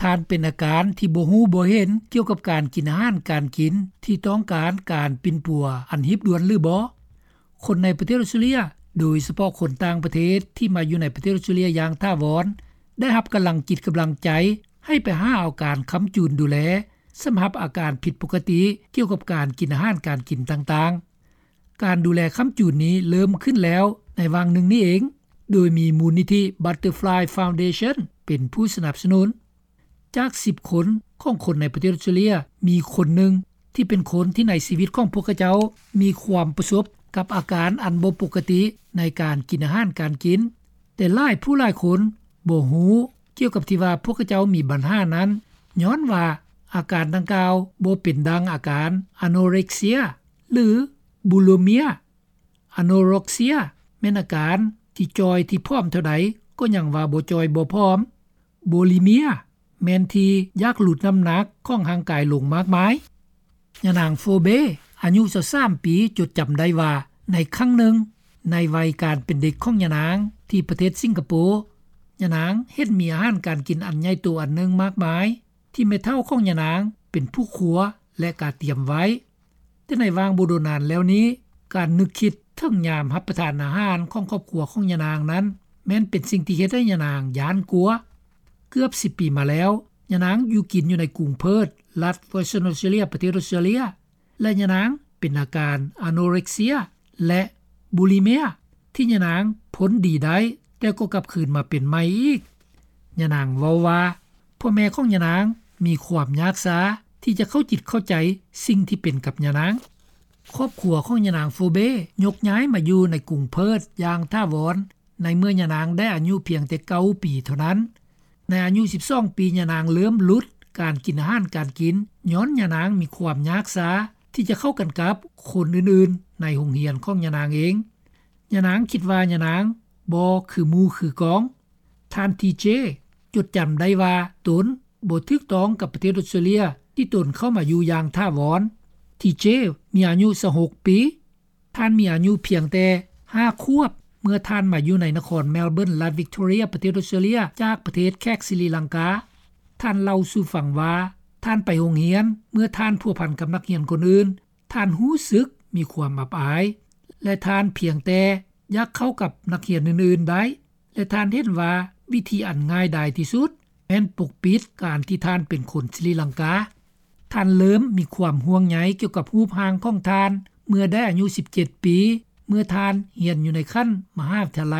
ທ່ານເປັນອາການທີ່ບໍ່ຮູ້ບໍ່ເຫັນກ່ຽວກັບການກິນອາຫານການກິນ ທີ່ຕ້ອງການການປິ່ນປົວອັນຮີບດ່ວນຫຼືບໍ່? ຄົນໃນປະເທດອອສເຕຣເລັຽ, ໂດຍສະເພາະຄົນຕ່າງປະເທດທີ່ມາຢູ່ໃນປະເທດອອສເຕຣເລັຽຢ່າງຖາວອນ, ໄດ້ຮັບກຳລັງຈິດກຳລັງໃຈໃຫ້ໄປຫາເອົາການຄ້ຳຈູນດູແລ ສຳລັບອາການຜິດປົກກະຕິກ່ຽວກັບການກິນອາຫານການກິນຕ່າງໆ. ການດູແລຄ້ຳຈູນນີ້ເລີ່ມຂຶ້ນແລ້ວໃນຫວ່າງໜຶ່ງນີ້ເອງ, ໂດຍມີມູນນິທິ Butterfly Foundation ເປັນຜູ້ສະໜັບສະໜູນ. ຈາກສິບຄົນຂອງຄົນໃນປະເທດອອສເຕຣເລັຽ, ມີຄົນໜຶ່ງທີ່ເປັນຄົນທີ່ໃນຊີວິດຂອງພວກເຂົາເຈົ້າມີຄວາມປະສົບກັບອາການອັນບໍ່ປົກກະຕິໃນການກິນອາຫານການກິນ, ແຕ່ຫຼາຍຜູ້ຫຼາຍຄົນບໍ່ຮູ້ກ່ຽວກັບທີ່ວ່າພວກເຂົາເຈົ້າມີບັນຫານັ້ນ, ຍ້ອນວ່າອາການດັ່ງກ່າວບໍ່ເປັນດັ່ງອາການ anorexia ຫຼື bulimia. Anorexia ແມ່ນອາການທີ່ຈ່ອຍທີ່ຜອມເທົ່າໃດກໍຍັງວ່າບໍ່ຈ່ອຍບໍ່ຜອມ. Bulimia ແມ່ນທີ່ຢາກຫຼຸດນ້ຳໜັກຂອງຮ່າງກາຍລົງມາກມາຍ. ຍານາງ Phoebe ອາຍຸຊາວສາມປີ ຈົດຈຳໄດ້ວ່າ ໃນຄັ້ງໜຶ່ງໃນໄວການເປັນເດັກຂອງຍານາງທີ່ປະເທດສິງກະໂປ, ຍານາງເຫັນມີອາຫານການກິນອັນໃຫຍ່ໂຕອັນໜຶ່ງມາກມາຍ ທີ່ແມ່ເຖົ້າຂອງຍານາງເປັນຜູ້ຄົວ ແລະ ກະຕຽມໄວ້. ແຕ່ໃນຫວ່າງບໍ່ດົນນານແລ້ວນີ້, ການນຶກຄິດເຖິງຍາມຮັບປະທານອາຫານຂອງຄອບຄົວຂອງຍານາງນັ້ນ ແມ່ນເປັນສິ່ງທີ່ເຮັດໃຫ້ຍານາງຢ້ານກົວ. ເກືອບສິບປີມາແລ້ວ, ຍານາງຢູ່ກິນຢູ່ໃນກຸງເພີດ, ລັດ Western Australia ປະເທດອອສເຕຣເລັຽ, ແລະ ຍານາງເປັນອາການ anorexia ແລະ bulimia ທີ່ຍານາງພົ້ນດີໄດ້, ແຕ່ກໍກັບຄືນມາເປັນໃໝ່ອີກ. ຍານາງເວົ້າວ່າ ພໍ່ແມ່ຂອງຍານາງມີຄວາມຍາກຊາທີ່ຈະເຂົ້າຈິດເຂົ້າໃຈສິ່ງທີ່ເປັນກັບຍານາງ. ຄອບຄົວຂອງຍານາງ Phoebe ຍົກຍ້າຍມາຢູ່ໃນກຸງເພີດຢ່າງຖາວອນ ໃນເມື່ອຍານາງໄດ້ອາຍຸພຽງແຕ່ເກົ້າປີເທົ່ານັ້ນ. ໃນອາຍຸສິບສອງປີ, ຍານາງເລີ່ມຫຼຸດການກິນອາຫານການກິນ ຍ້ອນຍານາງມີຄວາມຍາກຊາທີ່ຈະເຂົ້າກັນກັບຄົນອື່ນໆໃນໂຮງຮຽນຂອງຍານາງເອງ. ຍານາງຄິດວ່າຍານາງບໍ່ຄືໝູ່ຄືກອງ. ທ່ານ ທີເຈ ຈົດຈຳໄດ້ວ່າຕົນບໍ່ຖືກຕ້ອງກັບປະເທດອອສເຕຣເລັຽທີ່ຕົນເຂົ້າມາຢູ່ຢ່າງຖາວອນ. ທີເຈ ມີອາຍຸຊາວຫົກປີ. ທ່ານມີອາຍຸພຽງແຕ່ຫ້າຂວບ ເມື່ອທ່ານມາຢູ່ໃນນະຄອນແມລເບີນ ລັດວິກຕໍເຣຍ ປະເທດອອສເຕຣເລັຽ ຈາກປະເທດແຂກສະຣີລັງກາ. ທ່ານເລົ່າສູ່ຟັງວ່າ ທ່ານໄປໂຮງຮຽນ ເມື່ອທ່ານພົວພັນກັບນັກຮຽນຄົນອື່ນ, ທ່ານຮູ້ສຶກມີຄວາມອັບອາຍ ແລະ ທ່ານພຽງແຕ່ຢາກເຂົ້າກັບນັກຮຽນອື່ນໆໄດ້ ແລະ ທ່ານເຫັນວ່າວິທີອັນງ່າຍດາຍທີ່ສຸດແມ່ນປົກປິດການທີ່ທ່ານເປັນຄົນສະຣີລັງກາ. ທ່ານເລີ່ມມີຄວາມຫ່ວງໃຍກ່ຽວກັບຮູບຮ່າງຂອງທ່ານເມື່ອໄດ້ອາຍຸສິບເຈັດປີ ເມື່ອທ່ານຮຽນຢູ່ໃນຂັ້ນມະຫາວິທະຍາໄລ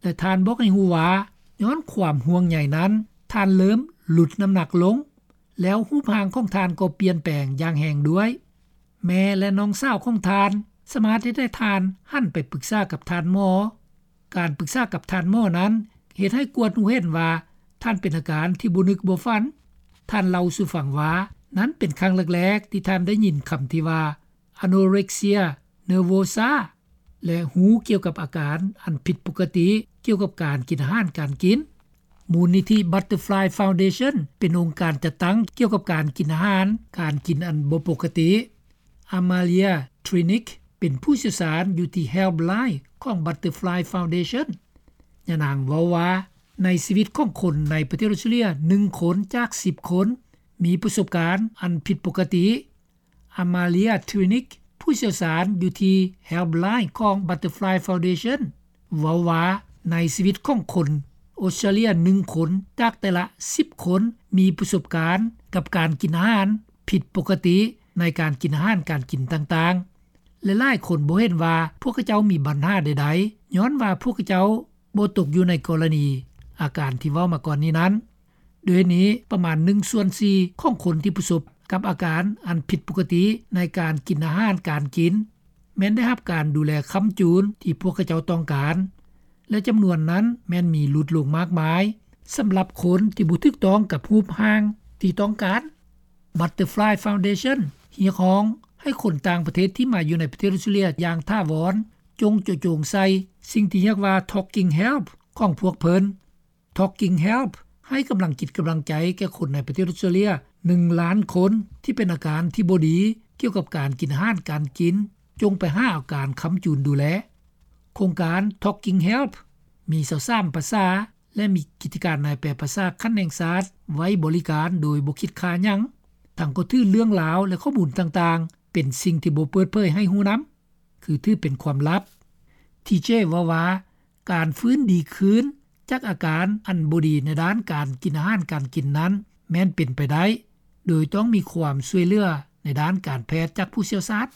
ແລະ ທ່ານບອກໃຫ້ຮູ້ວ່າ ຍ້ອນຄວາມຫ່ວງໃຍນັ້ນ, ທ່ານເລີ່ມຫຼຸດນ້ຳໜັກລົງ, ແລ້ວຮູບຮ່າງຂອງທ່ານກໍປ່ຽນແປງຢ່າງແຮງດ້ວຍ. ແມ່ ແລະ ນ້ອງສາວຂອງທ່ານສາມາດເຮັດໃຫ້ທ່ານຫັນໄປປຶກສາກັບທ່ານໝໍ. ການປຶກສາກັບທ່ານໝໍນັ້ນເຮັດໃຫ້ກວດຮູ້ເຫັນວ່າທ່ານເປັນອາການທີ່ບໍ່ນຶກບໍ່ຝັນ. ທ່ານເລົ່າສູ່ຟັງວ່າ ນັ້ນເປັນຄັ້ງແລກໆທີ່ທ່ານໄດ້ຍິນຄຳທີ່ວ່າ anorexia nervosa ແລະ ຮູ້ກ່ຽວກັບອາການອັນຜິດປົກກະຕິກ່ຽວກັບການກິນອາຫານການກິນ. ມູນນິທິ Butterfly Foundation ເປັນອົງການຈັດຕັ້ງກ່ຽວກັບການກິນອາຫານການກິນອັນບໍ່ປົກກະຕິ. Amalia Trinick ເປັນຜູ້ຊ່ຽວຊານຢູ່ທີ່ Helpline ຂອງ Butterfly Foundation. ຍານາງເວົ້າວ່າ ໃນຊີວິດຂອງຄົນໃນປະເທດອອສເຕຣເລັຽ ໜຶ່ງຄົນຈາກສິບຄົນມີປະສົບການອັນຜິດປົກກະຕິ. Amalia Trinick ຜູ້ຊ່ຽວຊານຢູ່ທີ່ Helpline ຂອງ Butterfly Foundation ເວົ້າວ່າ ໃນຊີວິດຂອງຄົນອອສເຕຣເລັຽ ໜຶ່ງຄົນຈາກແຕ່ລະສິບຄົນມີປະສົບການກັບການກິນອາຫານຜິດປົກກະຕິໃນການກິນອາຫານການກິນຕ່າງໆ ແລະ ຫຼາຍຄົນບໍ່ເຫັນວ່າພວກເຂົາເຈົ້າມີບັນຫາໃດໆ ຍ້ອນວ່າພວກເຂົາເຈົ້າບໍ່ຕົກຢູ່ໃນກໍລະນີອາການທີ່ເວົ້າມາກ່ອນນີ້ນັ້ນ. ດ້ວຍນີ້, ປະມານໜຶ່ງສ່ວນສີ່ຂອງຄົນທີ່ປະສົບກັບອາການອັນຜິດປົກກະຕິໃນການກິນອາຫານການກິນ ແມ່ນໄດ້ຮັບການດູແລຄ້ຳຈູນທີ່ພວກເຂົາເຈົ້າຕ້ອງການ ແລະ ຈຳນວນນັ້ນແມ່ນມີຫຼຸດລົງມາກມາຍ ສຳລັບຄົນທີ່ບໍ່ຖືກຕ້ອງກັບຮູບຮ່າງທີ່ຕ້ອງການ. Butterfly Foundation ຮຽກຮ້ອງໃຫ້ຄົນຕ່າງປະເທດທີ່ມາຢູ່ໃນປະເທດອອສເຕຣເລັຽຢ່າງຖາວອນ ຈົ່ງເຈາະຈົງໃສ່ສິ່ງທີ່ຮຽກວ່າ Talking Health ຂອງພວກເພິ່ນ. Talking Health ໃຫ້ກຳລັງຈິດກຳລັງໃຈແກ່ຄົນໃນປະເທດອອສເຕຣເລັຽ ໜຶ່ງລ້ານຄົນ ທີ່ເປັນອາການທີ່ບໍ່ດີກ່ຽວກັບການກິນອາຫານການກິນ, ຈົ່ງໄປຫາເອົາການຄ້ຳຈູນດູແລ. ໂຄງການ Talking Health ມີຊາວສາມພາສາ ແລະມີກິດຈະການນາຍແປພາສາຂັ້ນແຫ່ງຊາດ ໄວ້ບໍລິການໂດຍບໍ່ຄິດຄ່າຫຍັງ. ທັງກໍຖືເລື່ອງລາວ ແລະຂໍ້ມູນຕ່າງໆ ເປັນສິ່ງທີ່ບໍ່ເປີດເຜີຍໃຫ້ຮູ້ນຳ ຄືຖືເປັນຄວາມລັບ. ທີເຈເວົ້າວ່າ ການຟື້ນດີຄືນຈາກອາການອັນບໍ່ດີໃນດ້ານການກິນອາຫານການກິນນັ້ນ ແມ່ນເປັນໄປໄດ້ ໂດຍຕ້ອງມີຄວາມຊ່ວຍເຫຼືອໃນດ້ານການແພດຈາກຜູ້ຊ່ຽວຊານ.